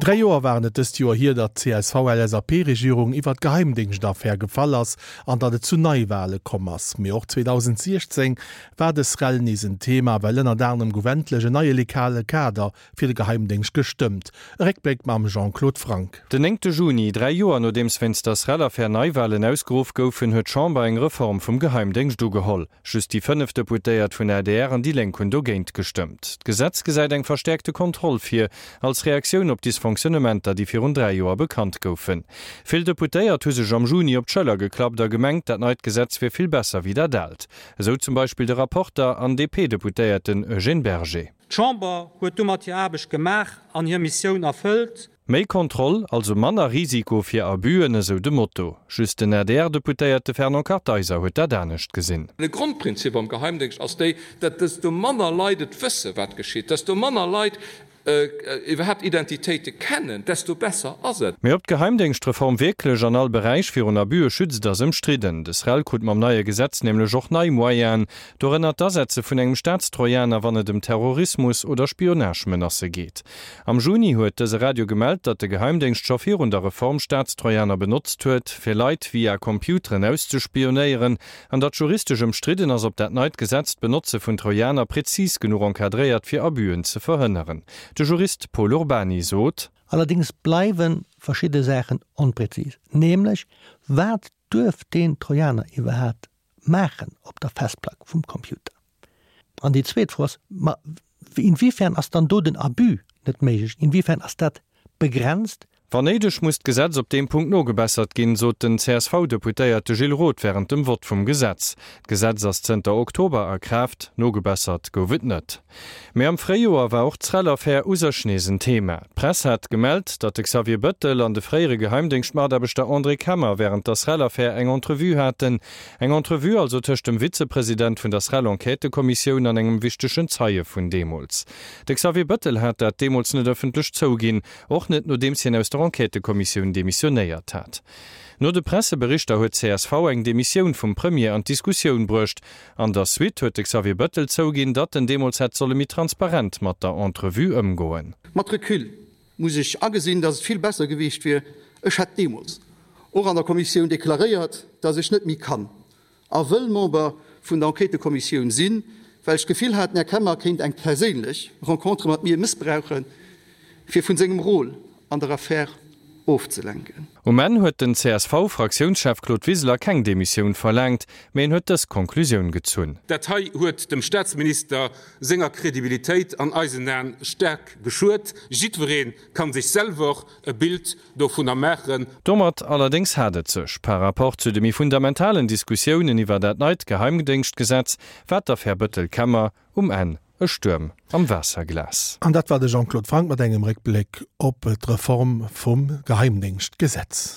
3 Joer waren et dëst Joer hier, datt d'CSV-LSAP-Regierung iwwer d'Geheimdéngschtaffär gefall ass an datt et zu Neiwale komm ass. Mee och 2016 war dës Rell nees en Thema, well ënnert anerem gouf endlech en neie legale Kader fir de Geheimdéngscht gestëmmt. E Réckbléck mam Jean-Claude Franck. Den néngte Juni, 3 Joer nodeems wéinst der SREL-Affär Neiwalen ausgeruff goufen, huet d'Chamber eng Reform vum Geheimdéngscht ugeholl. Just déi 5 Deputéiert vun adr an déi Lénk hunn dogéint gestëmmt. D'Gesetz gesäit eng verstäerkte Kontroll vir, als Reaktioun op Dysfonctionnementer, déi virun 3 Joer bekannt goufen. Vill Deputéiert hu sech am Juni op d'Schëller geklappt a gemengt, dat neit Gesetz wier vill besser wéi dat aalt. Esou zum Beispill de Rapporter an DP-Deputéierten Eugène Berger. D'Chamber huet domat hir Aarbecht gemaach an hir Missioun erfëllt. Méi Kontroll, also manner Risiko fir Abusen, esou de Motto. Just den ADR-Deputéierte Fernand Kartheiser huet dat anescht gesinn. De Grondprinzip am Geheimdéngscht ass déi, datt desto manner Leit et wësse wat geschitt, desto manner Leit iwwerhaapt Identitéite kennen, desto besser ass et. Mee ob d'Geheimdéngschtreform wierklech an all Beräich virun Abuse schützt, ass ëmstridden. De SREL krut mam neie Gesetz nämlech och nei Moyenen, dorënner d'Asetze vun engem Staatstrojaner, wann et ëm Terrorismus oder Spionage-Menacë geet. Am Juni huet dëse Radio gemellt, datt de Geheimdéngscht scho virun der Reform Staatstrojaner benotzt huet, fir Leit via Computeren auszespionéieren, an datt juristesch ëmstridden ass, ob dat neit Gesetz d'Benotze vun Trojaner prezis genuch encadréiert, fir Abüen ze verhënneren. De Jurist Pol Urbany sot. Allerdéngs bleiwe verschidde Saachen onprezis, nämlech wat duerf deen Trojaner iwwerhaapt maachen op der Festplack vum Computer? An déi zweet Fro ass, ma inwiefern ass dann do den Abus net méiglech, inwiefern ass dat begrenzt? Wann néideg, muss d'Gesetz op deem Punkt nogebessert ginn, sot den CSV-Deputéierte Gilles Roth wärend dem Vott vum Gesetz. D'Gesetz ass zënter Oktober a Kraaft, nogebessert gouf et net. Mee am Fréijoer war och d'SREL-Affär u sech nees en Thema. D'Press hat gemellt, datt de Xavier Bëttel an de fréiere Geheimdéngschtmataarbechter André Kemmer wärend der SREL-Affär eng Entrevue haten, Eng Entrevue also tëscht dem Vizepresident vun der SREL-Enquêtëkommissioun an engem wichtegen Zeie vun deemools. De Xavier Bëttel hat dat deemools net ëffentlech zouginn, och net nodeems hien aus der Enquêtëkommissioun demissionéiert hat. No de Presseberichter huet csv eng Demissioun vum Premier an d'Diskussioun bruecht. An der Suite huet de Xavier Bëttel zouginn, datt en deemools hätt solle méi transparent mat der Entrevue ëmgoen. Mat Recul muss ech agesinn, dass et vill besser gewiescht wier, ech hätt deemools och an der Kommissioun deklaréiert, dass ech net méi kann a wëll Member vun der Enquêtëkommissioun sinn, well ech d'Gefill hat, den Här Kemmer kéint eng perséinlech Rencontre mat mir mëssbrauchen, fir vun sengem Rôle an der Affär ofzelenken. Um Enn huet den CSV-Fraktiounschef Claude Wiseler keng Demissioun verlaangt, mee en huet dës Konklusioun gezunn. Dat hei huet dem Staatsminister senger Kredibilitéit an eisen Aen staark geschuet. Jiddweree kann sech selwer e Bild dovunner maachen. Domat allerdéngs hat et sech, par rapport zu de méi fundamentalen Diskussiounen iwwer dat neit Geheimdéngschtgesetz, war d'Affär Bëttel-Kemmer um Enn e Stuerm am Waasserglas. An dat war de Jean-Claude Franck mat engem Réckbléck op d'Reform vum Geheimdéngschtgesetz.